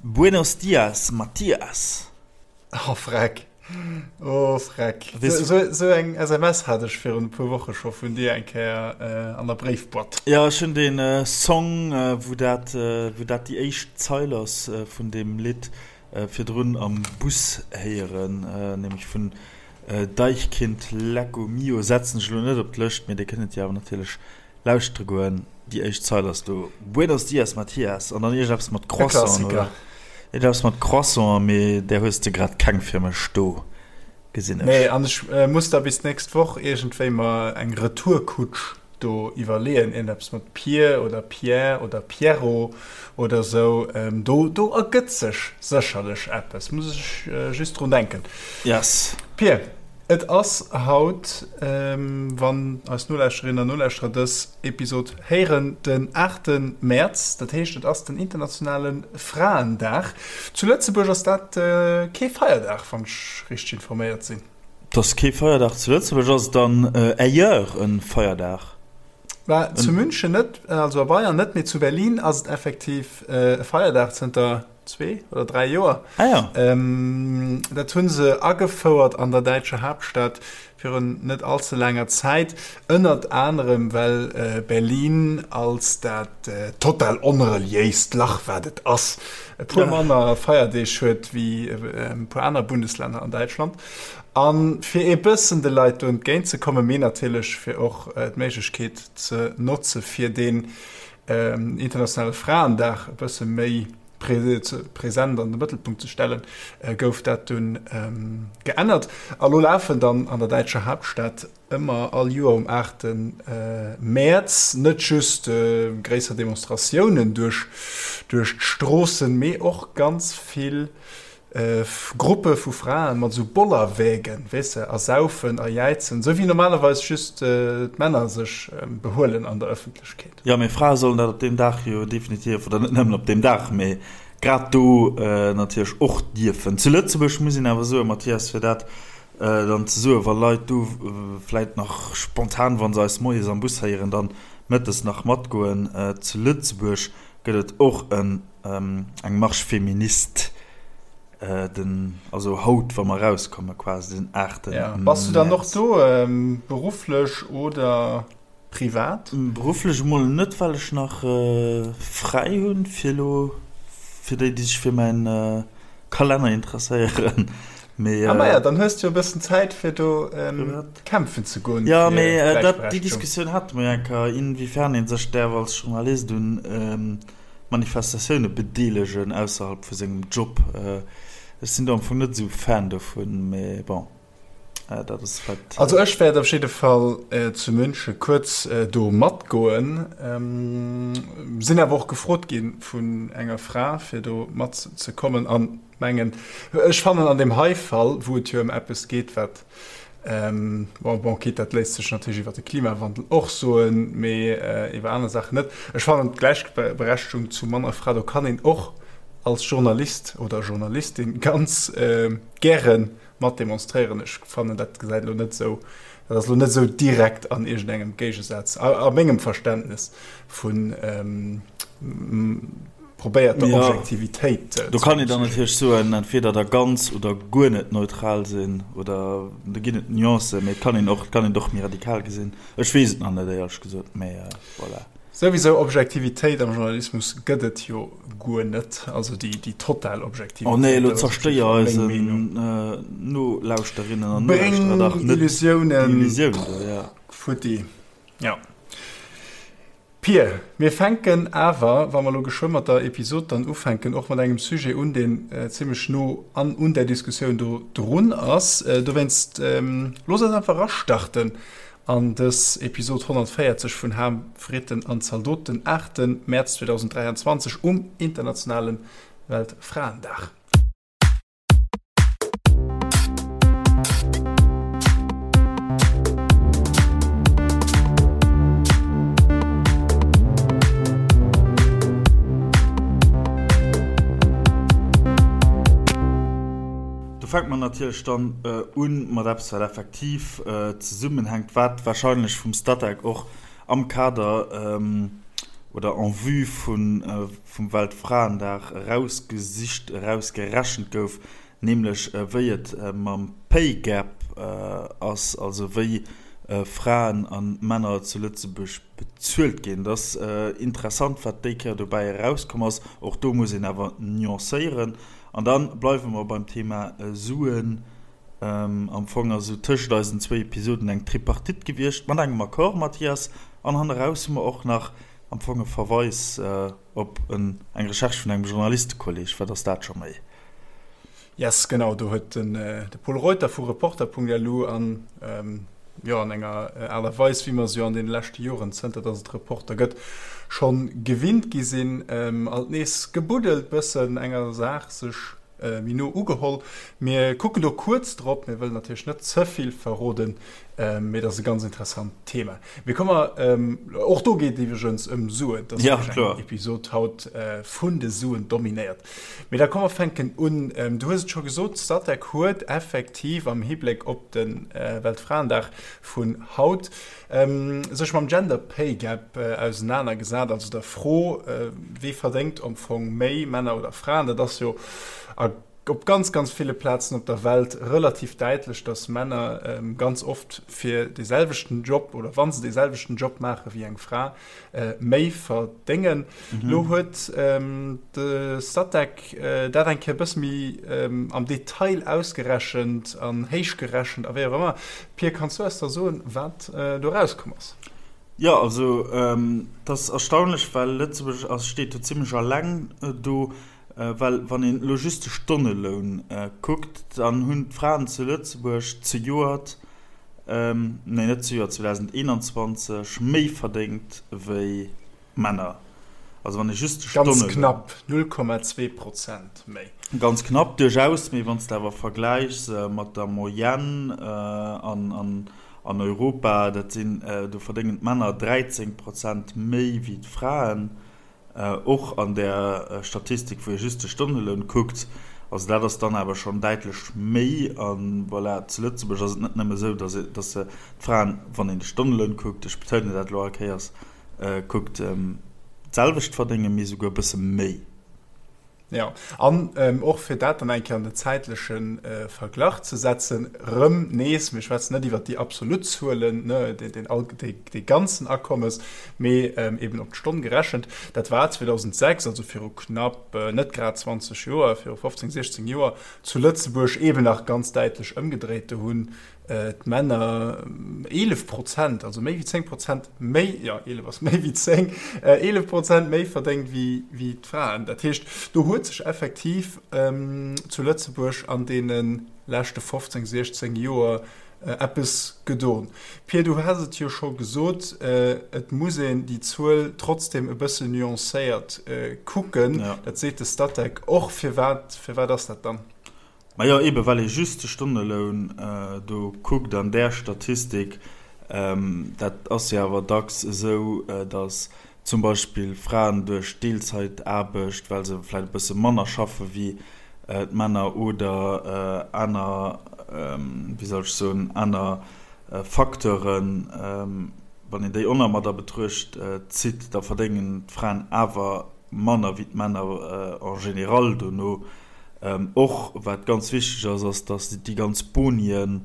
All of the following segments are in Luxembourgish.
Buenos dias, Mathias. Oh freck, oh freck. Sou eng SMS hat ech virun e puer Woche scho vun dir eng Kéier an der Bréifboîte. Jo, ech hunn dee Song, wou dat, wou dat déi éischt Zeil ass vun deem Lidd, virdrun am Bus héieren, nämlech vun Deichkind, Lecco Mio. Setzen ech elo net op d'Lëscht, mee dir kënnt et jo awer natierlech Lauschtere goen, déi éischt Zeil ass do Buenos dias Mathias an dann iergendeppes mat Croissant oder iergendeppes mat Croissant, mee där hues de grad keng fir mech do, gesinn ech. Nee, an ech muss da bis d'nächst Woch iergendwéi mer eng Retourkutsch do iwwerleeën, iergendeppes mat Pier oder Pierre oder Pierrot oder sou, do do ergëtt sech sécherlech eppes, muss ech just drun denken. Yes. Pir. Et ass haut, wann eis Nolauschterinnen an Nolauschterer dës Episod héieren, den aachte Mäerz. Dat heescht, et ass den internationale Fraendag. Zu Lëtzebuerg ass dat kee Feierdag, wann ech richteg informéiert sinn. Et ass kee Feierdag zu Lëtzebuerg. Ass et dann ailleurs e Feierdag? Bah, zu München net, also a Bayern net, mee zu Berlin ass et effektiv e Feierdag zënter 2 oder 3 Joer. Ah ja. Ähm, dat hunn se agefouert an der däitscher Haaptstad virun net allze laanger Zäit, ënnert anerem well äh, Berlin als dat äh, total onreliéist Lach wat et ass, e puer manner Feierdeeg huet wéi äh, e puer aner Bundeslänner an Däitschland. An fir ee bëssen de Leit do entgéint ze kommen, mee natierlech fir och äh, d'Méiglechkeet ze notze fir deen internationale Fraendag e bësse méi present an de Mëttelpunkt ze stellen, gouf dat dunn geännert. A lo lafen dann an der däitscher Haaptstad ëmmer all Joer um 8 Mäerz net just gréisser Demonstratiounen duerch d'Stroossen, mee och ganz vill Gruppe vu Fraen mat esou Bollerwägen, weess de, a saufen a jäizen, esou wéi normalerweis just d'Männer sech behuelen an der Ëffentlechkeet. Jo, mee Frae sollen dat op deem Dag jo definitiv, oder net nëmmen op deem Dag, mee grad do natierlech och dierfen. Zu Lëtzebuerg muss een awer soen, Mathias, fir dat dann ze soen, wa Leit do vläit nach spontan, wa se eis moies am Bus héieren, dann mëttes nach matgoen, zu Lëtzebuerg gëtt et och en Eng Marche féministe, den, also haut, wa mer erauskommen, quasi den 8. Ja. Bass du dann och do, berufflech oder privat? Berufflech emol net, well ech nach fräi hunn, fir elo, fir déi, déi sech fir mäin Kalenner interesséieren. Mee, ah maja, dann hues du jo e bëssen Zäit, fir do kämpfen ze goen. Jo, mee dat, déi Diskussioun hate mer jo eng Kéier, inwiefern ee sech däerf als Journalist un Manifestatioune bedeelegen ausserhalb vu sengem Job. Ech sinn do am Fong net esou Fan dovun, mee bon, dat ass vläit. Also ech wäert op jidde Fall zu Münche kuerz do matgoen. Sinn awer och gefrot gi vun enger Fra fir do matzekommen an mengen, ech fannen an deem hei Fall, wou et jo ëm eppes geet wat Bon, bon, quitte, dat léisst sech natierlech iwwer de Klimawandel och soen, mee iwwer aner Saachen net. Ech fannen, d'Gläichberechtegung zu Mann a Fra, do kann een och als Journalist oder Journalistin ganz gäre mat demonstréieren. Ech fannen, dat gesäit elo net esou, dat ass elo net esou direkt an iergendengem Géigesaz, a mengem Verständnes vun probéiert der Objektivitéit ze. Do kann een dann natierlech soen, entweder da ganz oder guer net neutral sinn, oder do ginn et Nuancen, mee et kann een och, et kann een et och méi radikal gesinn. Ech weess et nach net, éierlech gesot, mee voilà. Souwisou, Objektivitéit am Journalismus gëtt et jo guer net, also déi, déi total Objektivitéit. Oh nee, elo zerstéier eisen Nolauschterinnen an Nolauschterer dach net déi Illusiounen do, ja. Futti, jo. Pir, mir fänken awer, wa mer elo geschwë mat der Episod dann ufänken, och mat engem Sujet un, deen zimlech no an un där Diskussioun do drun ass. Dowéinst looss eis einfach erastarten an dës Episod 140 vun Ham, Fritten an Zaldot, den 8 Mäerz 2023 um internationale Weltfraendag. Do fänkt mer natierlech dann un mat eppes, wat effektiv zesummenhänkt, wat wahrscheinlech vum Statec och am Kader. oder en vue vun vum Weltfraendag erausgesicht, erausgerechent gouf, nämlech wéi et mam Pay Gap ass, also wéi Fraen a Männer zu Lëtzebuerg bezuelt ginn. Et ass interessant, wat déi Kéier dobäi erauskomm ass. Och do muss een awer nuancéieren. An da bleiwe mer beim Thema Suen. Am Fong ass esou tëschent eisen zwéi Episoden eng Tripartite gewiescht, mat engem Accord, Mathias. An hanneraus hu mer och nach am Fong e Verweis op eng Recherche vun engem Journalistekolleg. Wat ass dat scho méi? Yes, genau, do huet de Pol Reuter vu Reporter.lu an, jo, an enger Aart a Weis, wéi mer se jo an deene leschte Joren, zënter datt et Reporter gëtt, scho gewinnt gi sinn, alt nees gebuddelt, bëssen enger Saach sech méi no ugeholl. Mir kucken do kuerz drop, mir wëllen natierlech net ze vill verroden, mee et ass e ganz interessant Thema. Mee komme mer, och do geet et iwwregens ëm Suen, et ass wierklech eng Episod haut vun de Suen dominéiert. Mee da komm mer fänken un. Du hues et scho gesot, d'Statec huet effektiv am Hibléck op de Weltfraendag vun haut sech mam Gender Pay Gap ausenaner gesat, also der Fro, wee verdéngt am Fong méi, Männer oder Fraen? Dat ass jo a op ganz, ganz ville Plazen op der Welt relativ däitlech, datt Männer ganz oft fir dee selwechten Job oder wa se dee selwechten Job maache wéi eng Fra, méi verdéngen. Lo huet de Statec dat eng Kéier e bësse méi am Detail ausgerechent an héichgerechent a wéi och ëmmer. Pir, kanns du eis da soen, wat do erauskomm ass? Jo, also et ass erstaunlech, well Lëtzebuerg ass, steet do zimmlech alleng do, well wann een elo just de Stonneloun kuckt, dann hunn d'Fraen zu Lëtzebuerg zejoert, nee net zejoert, 2021 méi verdéngt wéi Männer. Also wann ee just de Ganz knapp, 0,2 Prozent méi. Ganz knapp duerchaus, mee wann s de awer vergläichs mat der Moyenne an Europa, dat sinn, do verdéngen d'Männer 13 Prozent méi wéi d'Fraen, och an där Statistik wou ee just de Stonneloun kuckt. Also dat ass dann awer schonn däitlech méi. A voilà, zu Lëtzebuerg ass et net nëmme esou, datt d'Fraen, wann een de Stonneloun kuckt, ech betounen dat elo all Kéiers, Kuckt, d'selwecht verdéngen, mee esouguer e bësse méi. Jo, an och fir dat dann eng Kéier an den zäitleche Verglach ze setzen, erëm nees, mir schwätzen net iwwert déi absolut Zuelen, ne, dee ganzen Akommes, mee eben op d'Stonn gerechent, dat war 2006, also viru knapp net grad 20 Joer, viru 15, 16 Joer, zu Lëtzebuerg eben nach ganz däitlech ëmgedréit. Do hunn d'Männer 11 Prozent, also méi wéi 10 Prozent méi, jo 11 ass méi wéi 10, 11 Prozent méi verdéngt wéi, wéi d'Fraen. Dat heescht, do huet sech effektiv zu Lëtzebuerg an deene leschte 15, 16 Joer eppes gedon. Pir, du has et jo scho gesot, et muss een déi Zuel trotzdem e bëssen nuancéiert kucken. Dat seet de Statec och. Firwat, firwat ass dat dann? Majo, eben well ee just de Stonneloun do kuckt an där Statistik. Dat ass jo awer dacks esou, datt zum Beispill Fraen duerch Deelzaitaarbecht, well se vläicht e bësse manner schaffe wéi d'Männer oder aner, wéi soll ech soen, aner Facteuren, wann een déi och nach mat a Betruecht zitt, da verdéngen d'Fraen awer manner wéi d'Männer en général dono. Och wat ganz wichteg ass, ass, datt déi ganz Bonien,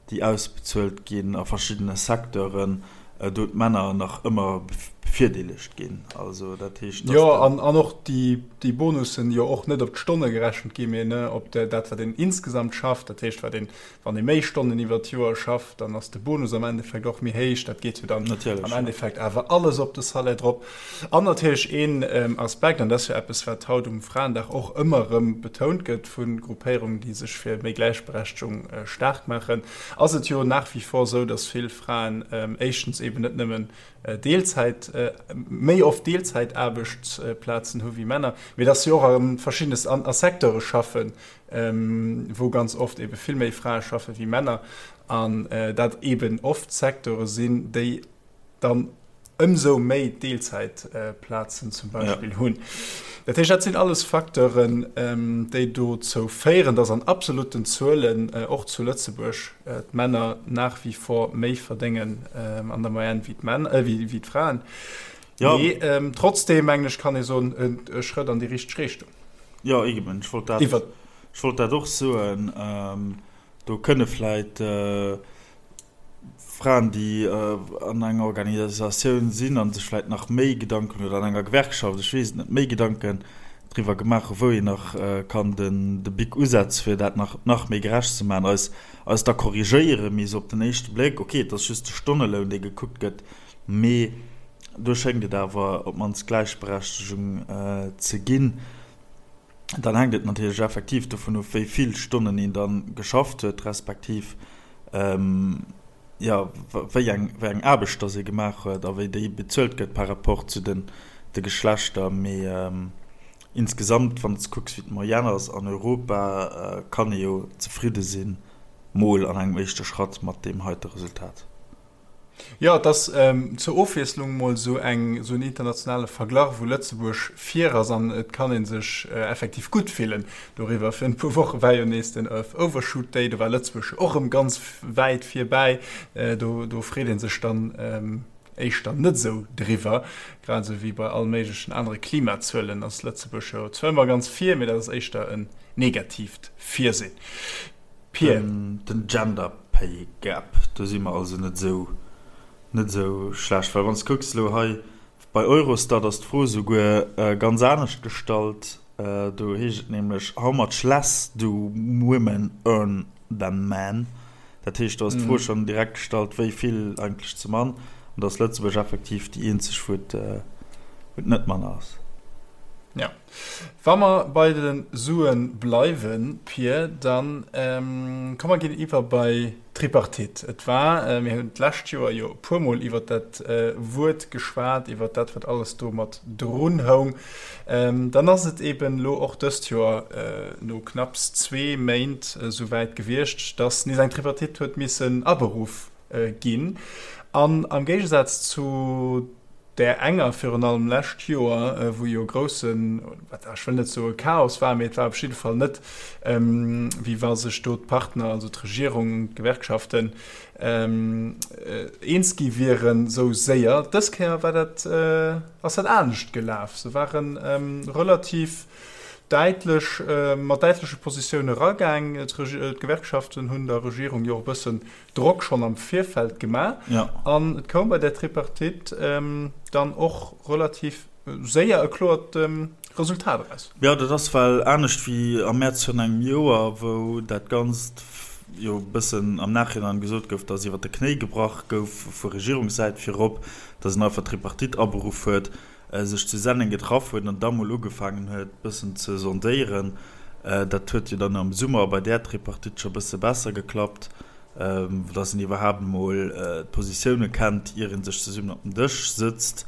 déi ausbezuelt ginn a verschiddene Secteuren, do d'Männer nach ëmmer bevirdeelegt ginn. Also dat heescht, datt. Jo, an och déi Bonussen jo och net op d'Stonne gerechent ginn, mee op dat, wat een insgesamt schafft. Dat heescht, wat een Wann ee méi Stonnen iwwert d'Joer schafft, dann ass de Bonus am Endeffekt och méi héich. Dat geet jo dann am Endeffekt awer alles op de Salaire drop. An natierlech een Aspekt, an dat ass jo eppes, wat haut um Fraendag och ëmmer erëm betount gëtt vu Gruppéierungen, déi sech fir méi Gläichberechtegung staark maachen, ass et jo nach wie vor esou, dass vill Fraen éischtens eeben net nëmmen Deelzäit, méi oft Deelzäitaarbechtsplazen hu wéi Männer, mee dass si och a verschiddene a Secteure schaffen, wou ganz oft ebe vill méi Frae schaffe wéi Männer an dat eben oft Secteure sinn, déi dann ëmsou méi Deelzäitplazen zum Beispill hunn. Dat heescht, dat sinn alles Facteuren, déi dozou féieren, dass an absolutten Zuelen och zu Lëtzebuerg d'Männer nach wie vor méi verdéngen an der Moyenne wéi d'Fraen. Ja. Mee ähm, trotzdem mengen ech kann ee soen e Schrëtt an déi richteg Richtung. Jo eben, ech wollt dat, Iwwer. Ech wollt dat och soen. Ähm, do kënne vläit äh, Fraen, déi äh, an enger Organisatioun sinn a sech vläit nach méi Gedanken, oder an enger Gewerkschaft, ech weess et net, méi Gedanken driwwer gemaach hu wou een nach äh, kann den, de Bic usetze fir dat nach, nach méi gerecht ze maachen, eis, eis da korrigéieren. Mee esou op den éischte Bléck, okay, et ass just de Stonneloun, dee gekuckt gëtt, Mee do schéngt et awer op d'mannst Gläichberechtegung ze ginn. Dann hänkt et natierlech effektiv dovun of, wéi vill Stonnen een da geschafft huet, respektiv jo wéi eng wéi eng Aarbecht dass ee gemaach huet a wéi déi bezuelt gëtt par rapport zu den de Geschlechter. Mee insgesamt, wann s de kucks, wéi d'Moyenne ass an Europa, kann ee jo zefridde sinn, mol an engem éischte Schratt mat deem heite Resultat. Jo, et ass zur Ofwiesslung mol esou eng, esou en internationale Verglach, wou Lëtzebuerg vir ass an et kann ee sech effektiv gutt fillen doriwwer. Virun e puer Woche war jo nees den Earth Overshoot Day, do war Lëtzebuerg jo och erëm ganz wäit virbäi. Do, do freet ee sech dann éischter net esou driwwer. Grad esou wéi bei all méiglechen anere Klimazuelen ass Lëtzebuerg jo zwar ëmmer ganz vir, mee dat ass éischter en negatiivt Virsinn. Pir. Den Gender Pay Gap, do si mer also net esou, net esou schlecht. Well wann s de kucks elo hei bei Eurostat ass d'Fro esouguer ganz anescht gestallt. Do heescht et nämlech, How much less do women earn than men? Dat heescht, do ass d'Fro schonn direkt gestallt, wéi vill eigentlech ze mann. An do ass Lëtzebuerg effektiv déi eenzeg, wou et, wou et net manner ass. Jo. Wa mer bei de Sue bleiwen, Pir, da komm mer ginn iwwer bei d'Tripartite. Et war, mir hunn d'lescht Joer jo e puermol iwwer dat Wuert geschwat, iwwer dat, wat alles do mat drun houng. Dann ass et eeben elo och dëst Joer no knapps zwee Méint esouwäit gewiescht, dass nees eng Tripartite huet missen aberuff ginn. An am Géigesaz zu där enger, virun allem lescht Joer, wou jo groussen, ech wëll net soe Chaos war, mee et war op jidde Fall net, wéi wa sech do d'Partner, also d'Regierung, d'Gewerkschaften, eens gi wieren esou séier. Dës Kéier war dat, ass dat anescht gelaf. Se ware relativ däitlech, mat däitleche Positioune eragaang. D'Gewerkschaften hunn der Regierung jo och e bëssen Drock schonn am Virfeld gemaach an et koum bei där Tripartite dann och relativ séier e kloert Resultat eraus. Jo, dat ass well anescht wéi am Mäerz virun engem Joer, wou dat Ganzt jo e bëssen am Nachhinein gesot gouf, datt iwwer de Knéi gebrach gouf vu Regierungssäit virop, datt een einfach d'Tripartite aberuff huet. sech zu Senneng getraff huet an da mol ugefaangen huet bëssen ze sondéieren. Dat huet jo dann am Summer bei där Tripartite scho bësse besser geklappt, dass een iwwerhaapt emol d'Positioune kennt, ier ee sech zesummen op den Dësch sëtzt.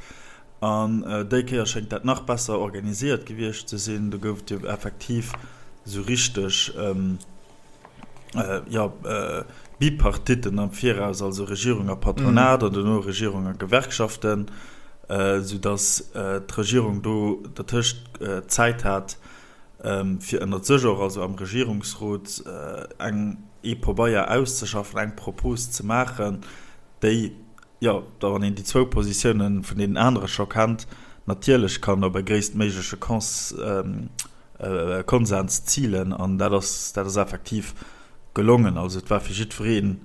An déi Kéier schéngt dat nach besser organisiert gewiescht ze sinn. Do gouf et jo effektiv esou richteg, jo, Bipartitten am Viraus, also Regierung a Patronat an duerno Regierung a Gewerkschaften, soudass d'Regierung do dertëscht Zäit hat, fir ënnert sech och, also am Regierungsrot, eng, ee Pobeier auszeschaffen, eng Propos ze maachen, déi, jo, da wann een déi zwou Positiounen vun deenen anere scho kennt, natierlech kann op e gréisstméigleche Kons, Konsens zilen an dat ass, dat ass effektiv gelongen. Also et war fir jiddwereen,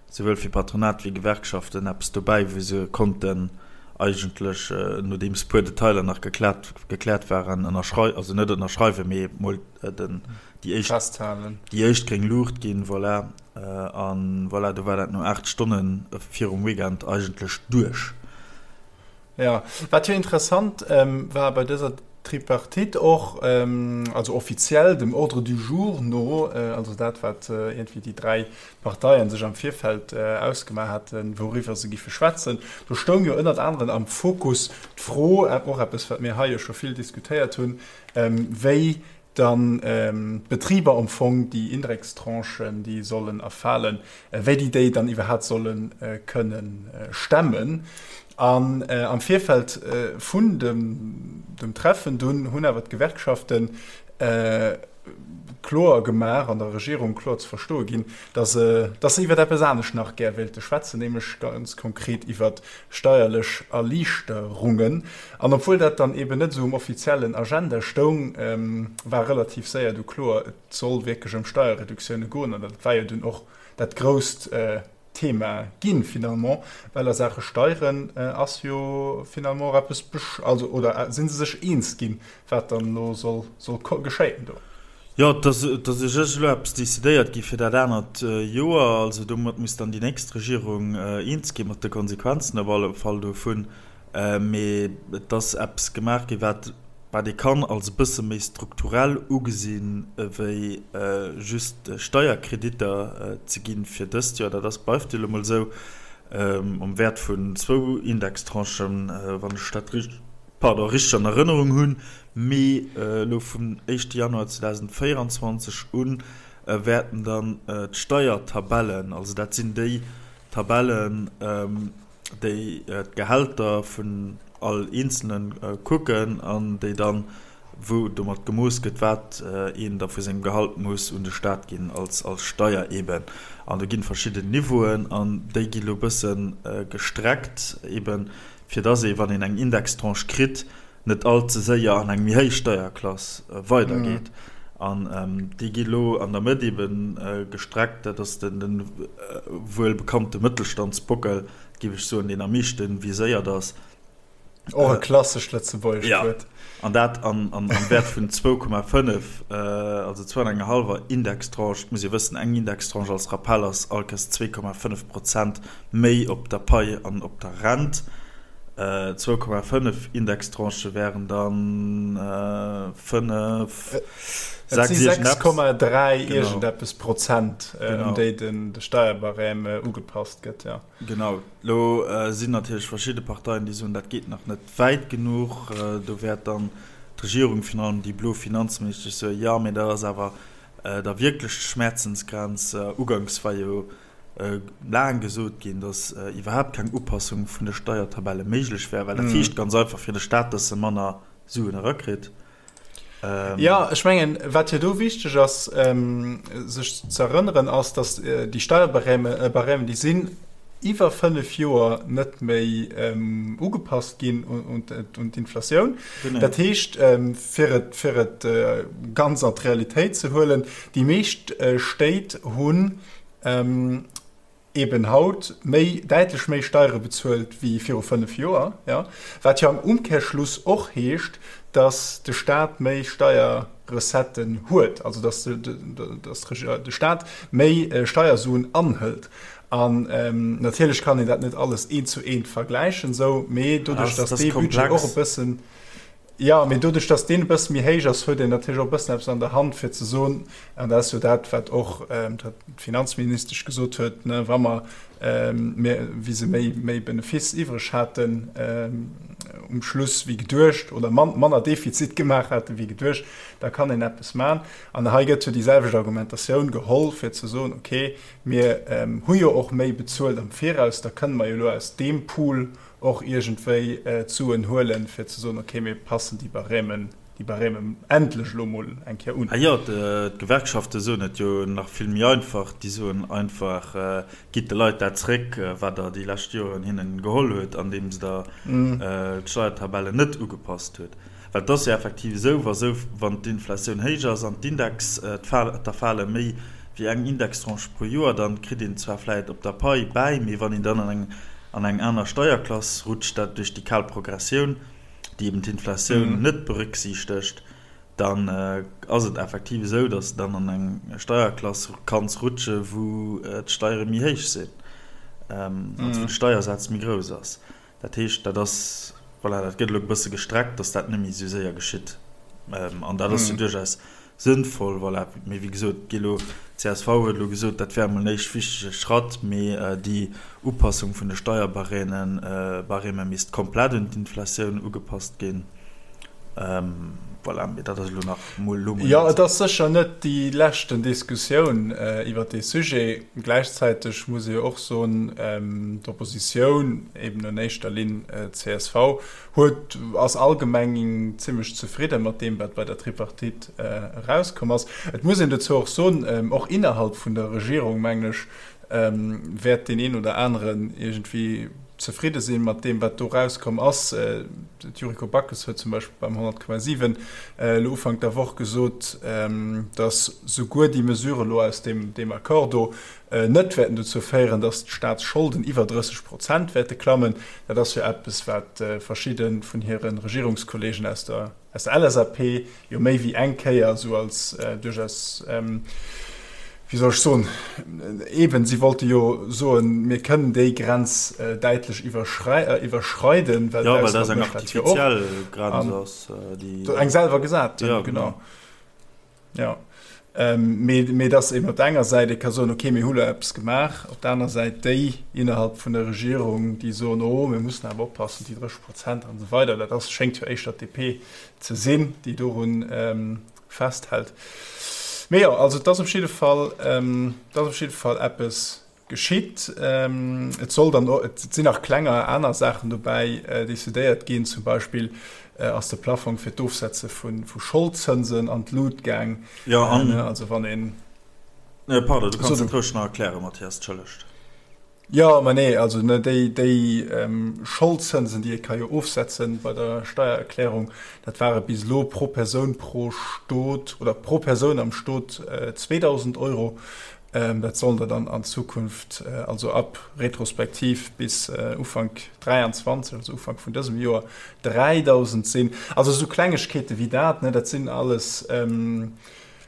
souwuel fir Patronat wéi Gewerkschaften, eppes dobäi, wou se konnten eigentlech, nodeems e puer Detailer nach gekläert, gekläert waren, ënnerschrei-, also net ënnerschreiwen, mee emol den, déi éischt, Festhalen. déi éischt gréng Luucht ginn. Voilà. A voilà, do war dat no 8 Stonne virum Weekend eigentlech duerch. Jo, wat jo interessant war bei dëser Tripartite och, also offiziell dem Ordre du jour no, also dat wat iergendwéi déi 3 Parteien sech am Virfeld ausgemaach haten, wouriwwer se giffe schwätzen, do stoung jo ënnert aneren am Fokus d'Fro, och eppes wat mir hei jo scho vill diskutéiert hunn, wéi dann d'Betriber am Fong déi Indextranchen, déi sollen erfalen, wéi déi déi dann iwwerhaapt solle kënne stemmen. An am Virfeld vun dem Treffen dunn hunn awer d'Gewerkschafte. kloer gemaach an der Regierung kloer ze verstoe ginn, dass se, dass se iwwer eppes anescht nach gär wéilte schwätzen, nämlech ganz konkret iwwer steierlech Erliichterungen. An obwuel dat dann eben net esou um offiziellen Agenda stoung, war relativ séier du kloer, et soll wierklech ëm Steierreduktioune goen. An dat war jo dunn och dat grousst Thema ginn, finalement, well a Saache Steieren ass jo finalement och eppes, also oder si se sech eens ginn, wat dann elo soll soll geschéien do. Jo, et ass et ass u sech elo eppes decidéiert gi fir dat anert Joer. Also domat muss dann déi nächst Regierung eens gi mat de Konsequenzen op alle Fall dovun. Mee et ass eppes gemaach gi wat wat ee kann als e bësse méi strukturell ugesinn ewéi just Steierkreditter ze ginn fir dëst Joer. Dat ass bleift jo elo mol esou am Wäert vun zwou Indextranchen, wann ech dat richteg pardon, richteg an Erënnerung hunn, mee elo vum éischte Januar 2024 un wäerten dann d'Steiertabellen, also dat sinn déi Tabellen, déi d'Gehälter vun all Eenzelne kucken an déi dann, wou domat gemooss gëtt, wat een da vu sengem Gehalt muss un de Staat ginn als Steier eeben. An do ginn verschidden Niveauen an déi gi lo bësse gestreckt eeben, fir dass ee, wann een eng Indextranche kritt, net all ze séier an eng méi héich Steierklass weidergeet. An déi gi lo an der Mëtt ebe gestreckt. Dat ass de wuel bekannte Mëttelstandsbockel, géif ech soen, deen am meeschte viséiert ass. Och e klassescht lëtzebuergescht Wuert. Jo, an dat am Wäert vun 2,5, also zwou an enger hallwer Indextranche. Et muss ee wëssen, eng Indextranche als Rappell ass allkes 2,5 Prozent méi op der Pai an op der Rent. 2,5 Indextranchë wären dann 5, 6, 6,3 iergendeppes Prozent, ëm déi de Steierbarème ugepasst gëtt, jo. Genau. Elo sinn natierlech verschidde Parteien, déi soen, dat geet nach net wäit genuch. Do wäert dann d'Regierung, virun allem déi blo Finanzministesch, soen, jo, mee dat ass awer da wierklech d'Schmerzensgrenz. Uganks war jo laang gesot ginn, datt iwwerhaapt keng Upassung vun de Steiertabelle méiglech wär, well dat heescht ganz einfach fir de Staat, datt e manner Suen erakritt. Jo, ech mengen, wat jo do wichteg ass, sech ze erënneren, ass, datt déi Steierbarèmen, déi sinn iwwer 5 Joer net méi ugepasst ginn un d'Inflatioun. Dat heescht, fir et, fir et ganz an d'Realitéit ze huelen, déi meescht Stéit hunn eben haut méi, däitlech méi Steiere bezuelt wéi viru 5 Joer, jo, wat jo am Umkehrschluss och heescht, datt de Staat méi Steierrecetten huet, also datt de Staat méi Steiersuen anhëlt. An natierlech kann een dat net alles eent zu eent vergläichen esou, mee doduerch, datt dee Budget och e bëssen, Jo, mee doduerch, datt deen e bësse méi héich ass, huet een natierlech och e bëssen eppes an der Hand, fir ze soen, an dat ass jo dat, wat och d'Finanzministesch gesot huet, ne, wa mer, mir, wéi se méi, méi Benefiss iwwreg haten um Schluss wéi geduecht oder manner Defizit gemaach hate wéi geduecht, da kann een eppes maachen. An hei gëtt jo déi selwecht Argumentatioun geholl, fir ze soen, okay, mir hu jo och méi bezuelt am Viraus, da kënne mer jo elo aus deem Pool och iergendwéi d'Suen huelen, fir ze soen, okay, mir passen déi Barèmen, déi Barèmen endlech elo mol eng Kéier un. Ah jo, d'Gewerkschafte soen et jo nach vill méi einfach, déi soen einfach, Gitt de Leit dat zréck, wat Der déi lescht Joren hinnen geholl hutt, andeems Der d'Steiertabellen net ugepasst hutt. Well et ass jo effektiv esou, wa sou, wann d'Inflatioun héich ass an d'Index, d'Erfale méi wéi eng Indextranche pro Joer, dann kritt een zwar vläit op der Pai bäi, mee wann een dann an eng an eng aner Steierklass rutscht, dat duerch déi kal Progressioun, déi eben d'Inflatioun net berücksichtegt, dann ass et effektiv esou, datt s de dann an eng Steierklass kanns rutsche wou d'Steiere méi héich sinn, also wou de Steiersaz méi grouss ass. Dat heescht, dat ass, voilà, dat gëtt elo e bësse gestreckt, datt dat net méi esou séier geschitt. An dat ass jo duerchaus sënnvoll, voilà. Mee wéi gesot, gi elo, d'CSV huet elo gesot, dat wär emol en éischt wichtege Schratt, mee déi Upassung vun de Steierbarèmen, Barème misst komplett un d'Inflatioun ugepasst ginn. Voilà, mee dat ass elo nach mol elo mol. Jo, et ass sécher net déi leschten Diskussioun iwwert dee Sujet. Gläichzäiteg muss ee jo och soen, d'Oppositioun, eben an éischter Linn csv, huet, ass allgemeng zimmlech zefridde mat deem, wat bei der Tripartite erauskomm ass. Et muss een dozou och soen, och innerhalb vun der Regierung, mengen ech, wäert deen een oder aneren iergendwéi zefridde sinn mat deem, wat do rauskomm ass. D'Yuriko Backes huet zum Beispill beim 100,7 elo Ufank der Woch gesot, datt souguer déi Mesurë elo aus deem Accord do net wäerten dozou féieren, datt d'Staatsscholden iwwer 30 Prozent wäerte klammen. Dat ass jo eppes, wat verschidde vun hire Regierungskolleegen aus der Aus der LSAP jo méi wéi eng Kéier esou als duerchaus, wéi soll ech soen, eben, si wollte jo soen, mir kënnen déi Grenz däitlech iwwerschreiden, well d'Ausland mécht dat jo och. Eng selwer gesat hunn, genau. Jo, mee dass eben op der enger Säit ee ka soen, okay, mir hu lo eppes gemaach, op der aner Säit déi innerhalb vun der Regierung, déi soen, oh, mir mussen awer oppassen, déi 30 Prozent an esou weider, dat ass, schéngt jo éischter d'DP ze sinn, déi doru festhält. Mee jo, also et ass op jidde Fall, et ass op jidde Fall eppes Geschitt. Et soll dann och, et sinn nach klenger aner Saachen dobäi decidéiert ginn. Zum Beispill ass de Plaffong fir d'Ofsetze vu Scholdzënsen an d'Lut gaang. Jo, an. Also wann een. Pardon, du kanns et roueg nach erklären, Mathias, entschëllegt. Jo, ma nee, also ne, déi, déi Scholdzënsen, déi ee ka jo ofsetze bei der Steiererklärung, dat ware bis elo pro Persoun pro Stot oder pro Persoun am Stot 2.000 Euro. Dat sollen der dann an Zukunft, also ab retrospektiv bis Ufank 23, also Ufank vun dësem Joer, 3.000 sinn. Also esou Klengegkeete wéi dat, ne, dat sinn alles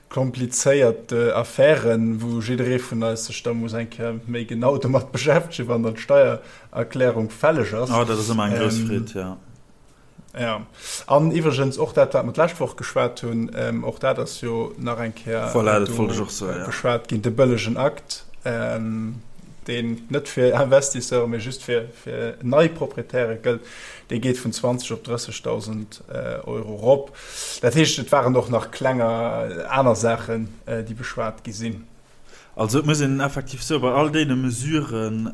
komplizéiert Affären, wou jidderee vun eis sech da muss eng Kéier méi genau domat beschäftegen, wann dann d'Steiererklärung fälleg ass. Oh, dat ass ëmmer eng grouss Freed, jo. Ja, an iwwregens och dat, wat mer d'lescht Woch geschwat hunn, och dat ass jo nach eng Kéier voilà, dat wollt ech och soen, ja. beschwat ginn, de bëllegen Akt, deen net fir Investisseure, mee just fir, fir nei Proprietäre gëllt, dee geet vun 20 op 30.000 Euro rop. Dat heescht, et waren och nach klenger aner Saachen, déi beschwat gi sinn. Also et muss een effektiv soen, bei all deene Mesuren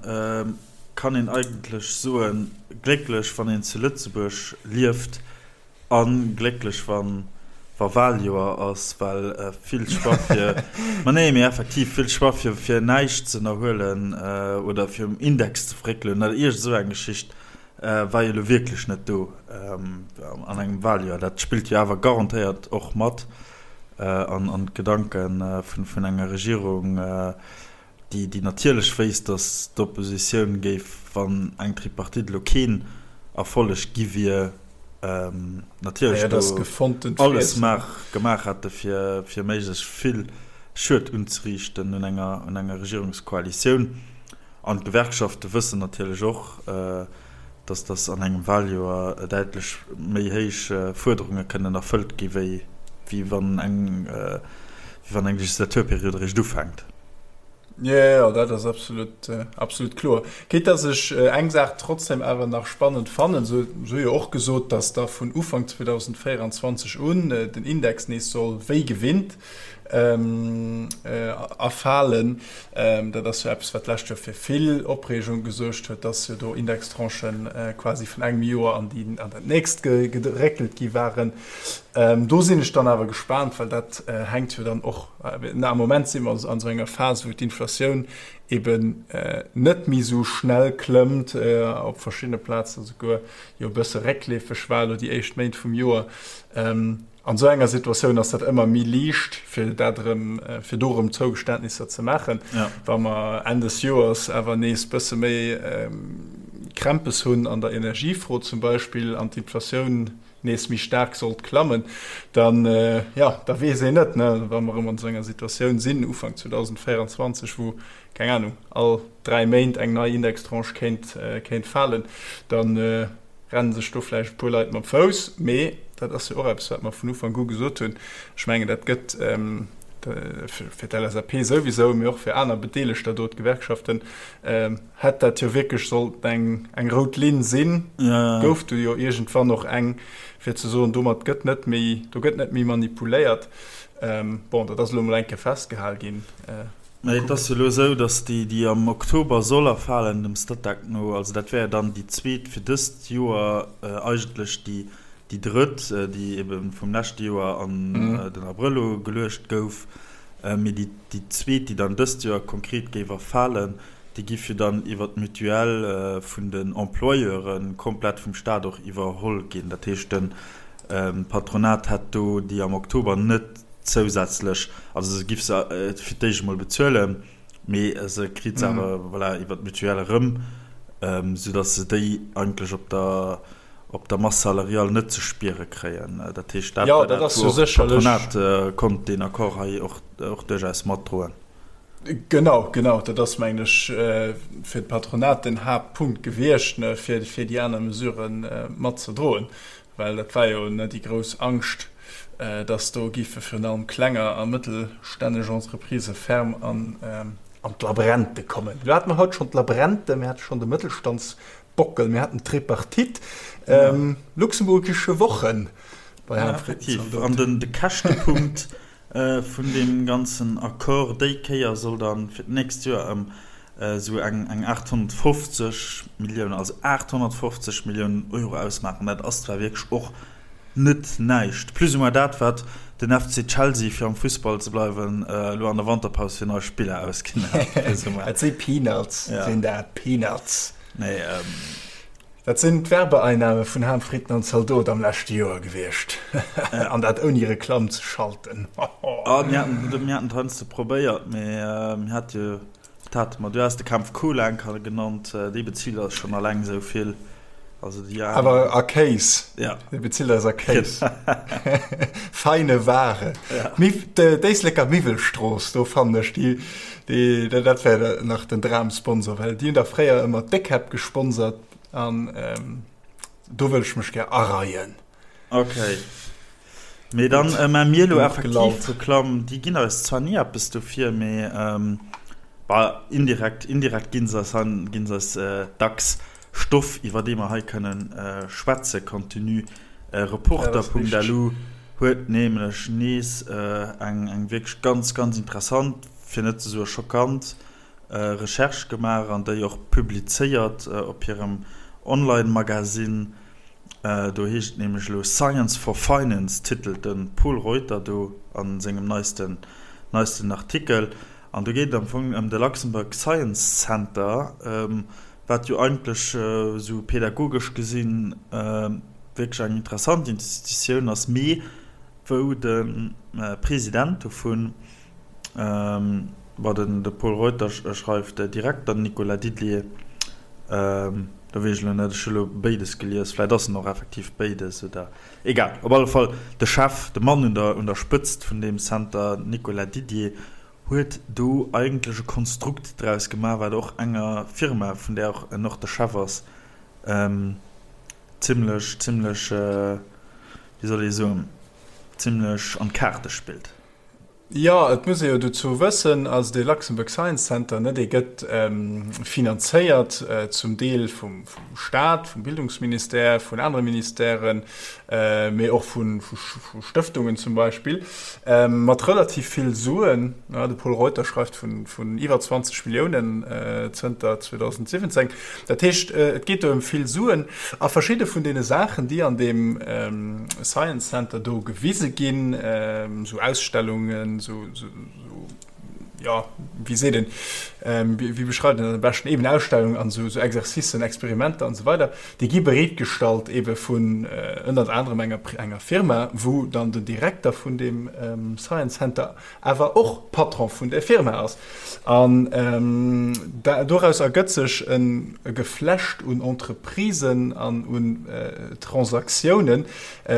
kann een eigentlech soen, glécklech wann een zu Lëtzebuerg lieft a glécklech wa wa Wahljoer ass, well vill Choix fir, ma nee, mee effektiv vill Choix fir fir näischt ze ënnerhuelen oder fir um Index ze fréckelen oder iergend esou eng Geschicht war jo elo wierklech net do an engem Wahljoer. Dat spillt jo awer garantéiert och mat an d'Gedanke vun enger Regierung, déi natierlech wéisst, datt d'Oppositioun géif, wann eng Tripartite elo keen Erfolleg gi wier, natierlech do alles gemaach hätte fir méiglechst vill Schued unzeriichten un enger Regierungskoalitioun. An d'Gewerkschafte wëssen natierlech och, dass dass an engem Wahljoer däitlech méi héich Fuerderunge kënnen erfëllt gi wéi wann eng wéi wann eng Legislaturperiod eréischt ufänkt. Jo, jo, dat ass absolut, absolut kloer. Quitte dass ech eng Saach trotzdem awer nach spannend fannen, se hu jo och gesot, dass da vun Ufank 2024 un den Index nees soll wéi gewinnt erfalen. Dat ass jo eppes, wat d'lescht Joer fir vill Opreegung gesuergt huet, dass jo do Indextranchen quasi vun engem Joer an déi, an dat nächst geréckelt gi waren. Do sinn ech dann awer gespaant, well dat hänkt jo dann och, am Moment si mer an esou enger Phas, wou d'Inflatioun eben net méi esou schnell klëmmt, op verschiddene Plazen esouguer jo e bësse réckleefeg war elo déi éischt Méint vum Joer. An esou enger Situatioun ass dat ëmmer méi liicht, fir dat erëm, fir do erëm Zougeständnisser ze maachen. Wa mer Enn des Joers awer nees bësse méi Krämpes hunn an der Energiefro zum Beispill an d'Inflatioun nees méi staark sollt klammen, dann, jo, da weess een net, ne, wa mer erëm an esou enger Situatioun sinn Ufank 2024, wou, keng Anung, all 3 Méint eng nei Indextranche kéint, kéint falen, dann, Rennen sech do vläicht e puer Leit mam Fouss, mee dat ass jo och eppes, wat mer vun Ufank u gesot hunn. Ech mengen, dat gëtt. Fir d'LSAP souwisou, mee och fir aner Bedeelegter do, d'Gewerkschaften, hätt dat jo wierklech sollt eng eng rout Linn sinn. Gouf du jo iergendwann och eng, fir ze soen, domat gëtt net méi, do gëtt net méi manipuléiert. Bon, dat ass elo emol eng Kéier festgehal ginn. Mä et ass jo elo esou, datt déi, déi am Oktober soll erfalen, dem Statec no, also dat wär jo dann déi zweet fir dëst Joer, eigentlech déi Déi drëtt, déi ebe vum leschte Joer an den Abrëll ugeluecht gouf, mee déi zweet, déi dann dëst Joer konkret géif erfalen, déi giff jo dann iwwer d'Mutuelle vun den Employeure komplett vum Staat och iwwerholl ginn. Dat heescht, de Patronat hätt do déi am Oktober net zousätzlech, also se giff se fir d'éischt emol bezuelen, mee se kritt se awer, voilà, iwwer d'Mutuelle erëm, soudatt se déi eigentlech op der op der Masse salariale net ze spiere kréien. Dat heescht, dat war dat, wou och d'Patronat konnt deen Accord hei och duerchaus matdroen. Genau, genau, dat ass, mengen ech, fir d'Patronat den Haaptpunkt gewiescht, fir déi aner Mesurë matzedroen, well dat war jo déi grouss Angscht, dass do géife virun allem klenger a mëttelstännesch Entreprisë ferm an d'Labrente kommen. Elo hate mer haut schonn d'Labrente, mir hate schonn de Mëttelstands Bockel, mir haten d'Tripartite, Luxemburgische Wochen bei Herrn Fritz. An den de Käschtepunkt vun deem ganzen Accord déi Kéier soll dann fir d'nächst Joer ëm esou eng eng 850 Milliounen, also 850 Milliounen Euro ausmaachen. Dat ass zwar wierklech och net näischt, plus ou moins dat wat den FC Chelsea, fir am Fussball ze bleiwen, elo an der Wanterpaus fir nei Spiller ausginn hat. Dat si Peanuts, sinn dat, Peanuts. Nee, Dat sinn d'Werbeeinnahme vun Ham, Fritten an Zaldot am leschte Joer gewiescht. An dat ouni Reklamm ze schalten. Ah, mir haten, mir haten et heiansdo probéiert, mee mir hat jo, wat hate mer, du has de Kämpf Cola eng Kéier genannt, dee bezilt eis schonn alleng esou vill. Also déi aner. Awer a Kéis. Ja. Dee bezilt eis a Kéis. Feine Ware. Ja. D'Éisleker Miwwelstrooss, do fannen ech déi. Déi, dat wär nach den Dramsponsor, well déi hunn da fréier ëmmer d'Déckkäpp gesponsert an do wëll ech mech gär areien. Ok. Mee dann maa mir elo effektiv Reklamm. Déi ginn eis zwar ni eppes dofir, mee bah, indirekt, indirekt ginn se eis, ginn se eis dacks Stoff, iwwer dee mer hei kënnen schwätzen. Contenu. Reporter.lu huet nämlech nees eng, eng wierklech ganz, ganz interessant, fir net ze soe schockant, Recherche gemaach an déi och publizéiert op hirem Online-Magasinn. Do heescht et nämlech elo Science for Finance, titelt de Pol Reuter do a sengem neisten neisten Artikel. An do geet et am Fong ëm de Luxembourg Science Center, wat jo eigentlech esou pedagogesch gesinn wierklech eng interessant Institutioun ass, mee wou de President dovun, Bon, den de Pol Reuter schreift Direkter Nicolas Didier, do weess ech elo net, ech hu elo béides gelies, vläit ass en och effektiv béides oder egal. Op alle Fall de Chef, de Mann un der un der Spëtzt vun deem Center, Nicolas Didier, huet do eigentlech e Konstrukt draus gemaach, wat och enger Firma, vun där och en och de Chef ass, zimlech, zimlech, wéi soll ee soen, zimlech an d'Kaarte spillt. Jo, et muss ee jo dozou wëssen, also dee Luxembourg Science Center, ne, dee gëtt finanzéiert zum Deel vum Staat, vum Bildungsministère, vun anere Ministèren, mee och vu Stëftungen zum Beispill, mat relativ vill Suen. De Pol Reuter schreift vun iwwer 20 Milliounen zënter 2017. Dat heescht, et geet do ëm vill Suen. A verschidde vun deene Saachen, déi an deem Science Center do gewise ginn, esou Ausstellungen, esou, jo, wéi seet een, wéi beschreift een dat am beschten, eben Ausstellungen an esou Exercicen, Experimenter an esou weider, déi gi bereetgestallt ebe vun ënnert anerem enger Firma, wou dann den Direkter vun deem Science Center awer och Patron vun där Firma ass. An doraus ergëtt sech e Geflecht un Entreprisen an un Transaktiounen,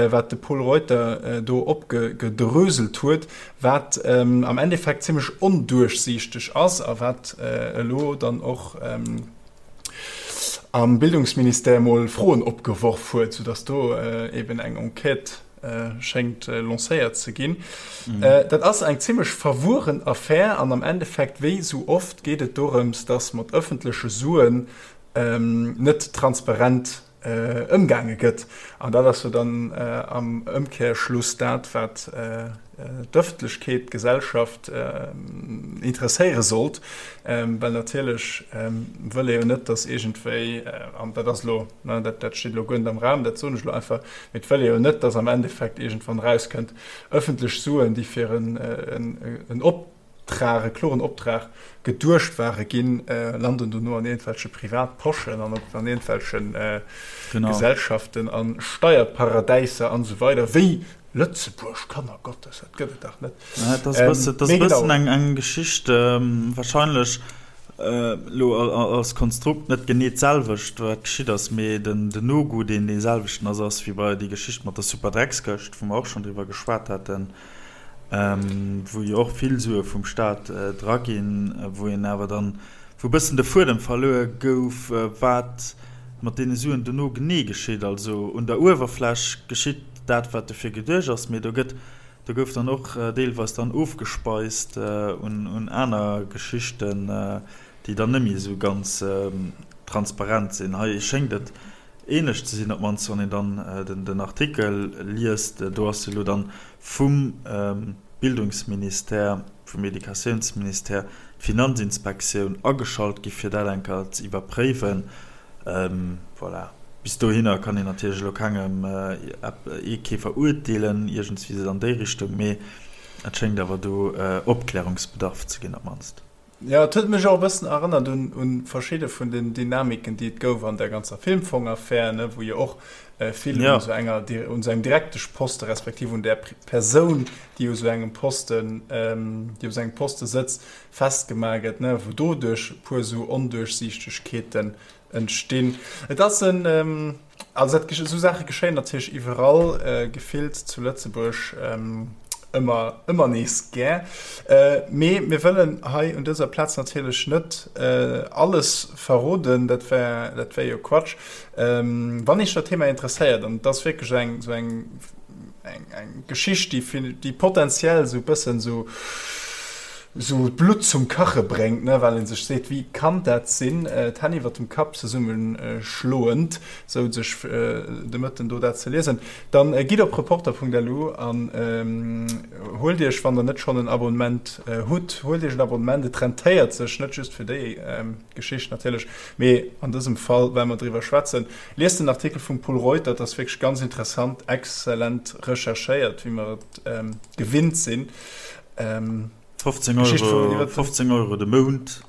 wat de Pol Reuter do opgedröselt huet, wat am Endeffekt zimlech onduerchsiichteg ass a wat elo dann och am Bildungsministère mol Froen opgeworf huet, soudass do eben eng Enquête. schéngt lancéiert ze ginn. Dat ass eng zimmlech verwueren Affär an am Endeffekt, wéi esou oft, geet et dorëms, datt mat ëffentleche Suen net transparent ëmgaange gëtt. An dat ass jo dann am Ëmkehrschluss dat, wat d'Ëffentlechkeet, d'Gesellschaft interesséiere sollt, well natierlech wëll ee jo net, datt iergendwéi, an dat ass elo, dat steet elo guer net am Raum, dat soen ech elo einfach, mee et wëll ee jo net, datt am Endeffekt iergendwann erauskënnt, ëffentlech Suen, déi fir en Optrag, e kloren Optrag geduecht ware ginn, landen dono an iergendwelche Privatposchen an op an iergendwelche Gesellschaften a Steierparadäiser an esou weider, wéi Lëtzebuerg, Kanner Gottes, dat gëtt et dach net. Dat ass e bësse, dat ass e bëssen eng, eng Geschicht, wahrscheinlech elo als Konstrukt net genee d'selwecht, wat geschitt ass, mee den, den Nogoût, deen dee selwechten ass, ass wéi bei déi Geschicht mat der Superdreckskëscht, wou mer och schonn driwwer geschwat haten. wou jo och vill Sue vum Staat dra ginn, wou een awer dann, wou e bëssen de Fuedem verluer gouf, wat mat deene Suen dono genee geschitt. Also un der Uewerfläch geschitt dat, wat dofir geduecht ass, mee do gëtt, do gouf dann och deelweis dann ofgespeist un aner Geschichten, déi dann net méi esou ganz transparent sinn. Hei schéngt et ähnlech ze sinn, op d'mannst wann een dann den Artikel liest. Do ass jo elo dann vum Bildungsministère, vum Educatiounsministère d'Finanzinspektioun ageschalt gi fir dat eng Kéier ze iwwerpréiwen. Voilà, bis dohinner kann een natierlech elo kengem ee kee verurteelen iergendswéi esou an déi Richtung, mee et schéngt awer do Opklärungsbedarf ze ginn op d'mannst. Jo, et huet mech och e bëssen erënnert un un verschidde vun den Dynamiken, déi et gouf an der ganzer Filmfong-Affär, ne, wou jo och vill un esou enger, un esou engem Direkteschposte respektiv un där Persoun, déi u sou engem Posten, déi op esou engem Poste sëtzt, festgemaach gëtt, ne, wou doduerch e puer esou Onduerchsiichtegkeeten entstinn. Et ass en, also dat, esou Saache geschéien natierlech iwwerall, gefillt zu Lëtzebuerg ëmmer, ëmmer nees gär. Mee mir wëllen hei un dëser Plaz natierlech net alles verroden, dat wär, dat wär jo Quatsch. Wann Iech dat Thema interesséiert, an et ass wierklech eng esou eng, eng, eng Geschicht, déi, déi potenziell esou e bëssen esou, esou d'Blutt zum Kache bréngt, ne, well ee sech seet, wéi kann dat sinn, d'Hänn iwwer dem Kapp zesumme schloend, sou sech de Mëtten do dat ze liesen, dann gitt op reporter.lu an huelt iech, wann der net schonn en Abonnement hutt, huelt iech en Abonnement, et rentéiert sech, net just fir déi Geschicht natierlech, mee an dësem Fall, well mer driwwer schwätzen. Liest den Artikel vum Pol Reuter, et ass wierklech ganz interessant, exzellent recherchéiert, wéi mer et gewinnt sinn. 15 Euro, 15 Euro de Mount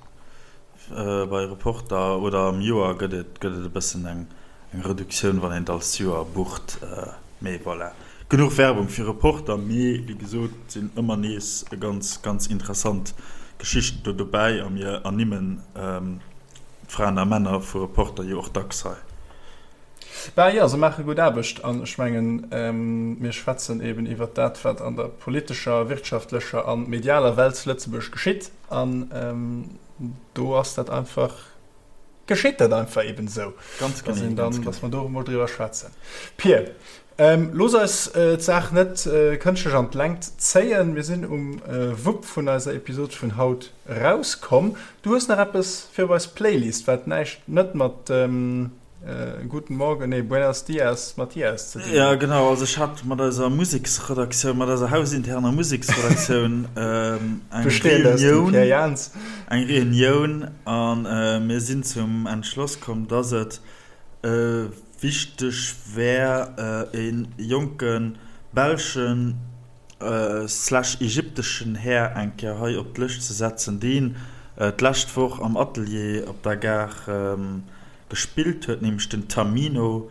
bei Reporter oder am Joer gëtt et gëtt et e bëssen eng eng Reduktioun, wann een et als Joer bucht. Mee voilà, genuch Werbung fir Reporter. Mee wéi gesot, et sinn ëmmer nees ganz ganz interessant Geschichten do dobäi a mir ernimmen d'Fraen a Männer vu Reporter jo och dacks hei. Bah jo, se maache gutt Aarbecht an ech mengen, mir schwätzen eben iwwert dat, wat an der politescher, wirtschaftlecher a medialer Welt zu Lëtzebuerg geschitt an do ass dat einfach, geschitt dat einfach eben esou, Ganz dass genee, een dann, ganz dass mer do emol driwwer schwätzen. Pir, looss eis d'Saach net kënschtlech an d'Längt zéien. Mir sinn um Wupp vun eiser Episod vun haut erauskomm. Du hues nach eppes fir op eis Playlist, wat näischt net mat Guten Morgen, nee, Buenos Dias, Mathias ze dinn huet. Ja, genau, also ech hat mat eiser Museksredaktioun, mat eiser hausinterner Museksredaktioun eng Reunioun, eng Reunioun an mir sinn zum Entschloss komm, dass et wichteg wär, e jonke belschen slash ägypteschen Här eng Kéier hei op d'Lëscht ze setzen, deen d'lescht Woch am Atelier op der Gare gespillt huet, nämlech den Tamino.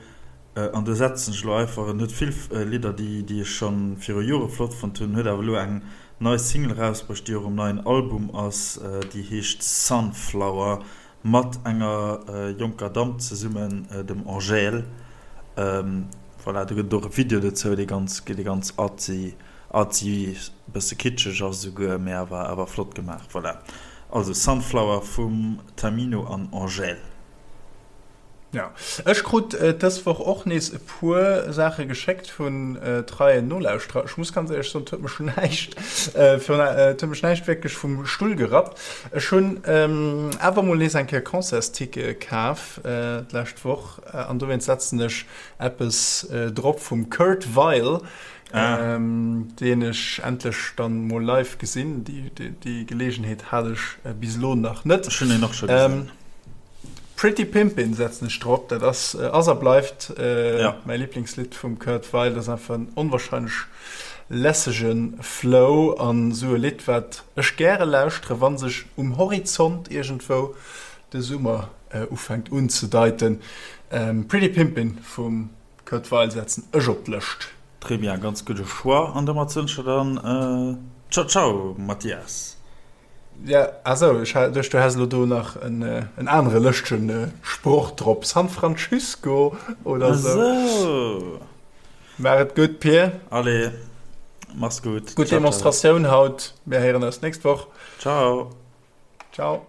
An do setzen ech elo einfach, en huet vill Lidder, déi ech scho viru Jore flott fonnt hunn, huet awer elo eng nei Single erausbruecht, déi och um neien Album ass, déi heescht Sunflower, mat enger jonker Damm zesummen, dem Angèle. Voilà, do gëtt et och e Video dozou, dee ganz, dee ganz artsy, artsy, bësse kitscheg ass esouguer, mee awer, awer flott gemaach. Voilà, also Sunflower vum Tamino an Angèle. Ja, ech krut dës Woch och nees e puer Saache geschéckt vun treien Nolauschterer. Ech muss ganz éierlech soen, et huet mech näischt, et huet mech näischt wierklech vum Stull gerappt. Ech hunn awer mol nees eng Kéier Concertstickete kaf d'lescht Woch an dowéinst setzen ech eppes drop vum Kurt Weill, deen ech endlech dann mol live gesinn. Déi Geleegenheet hat ech bis elo nach net. Ech hunn en och scho gesinn. Pretty Pimpin' setzen ech drop, dat ass ass a bleift mäi Liblingslidd vum Kurt Weill. Dat ass einfach en onwahrscheinlech lässege Flow an esou e Lidd wat ech gäre lauschtere wa sech um Horizont iergendwou de Summer ufänkt unzedeiten. Pretty Pimpin' vum Kurt Weill setzen ech op d'Lëscht. Très bien, ganz gudde Choix an domat soen ech der dann Ciao ciao Mathias. Ja, ah sou, ech hat duecht du häss elo do nach en en anere lëschtegen Sproch drop, San Francisco oder sou. Ah sou. Maach et gutt, Pir. Allez, mach's gutt. Gutt Demonstratioun haut. Mir héieren eis d'nächst Woch. Ciao. Ciao.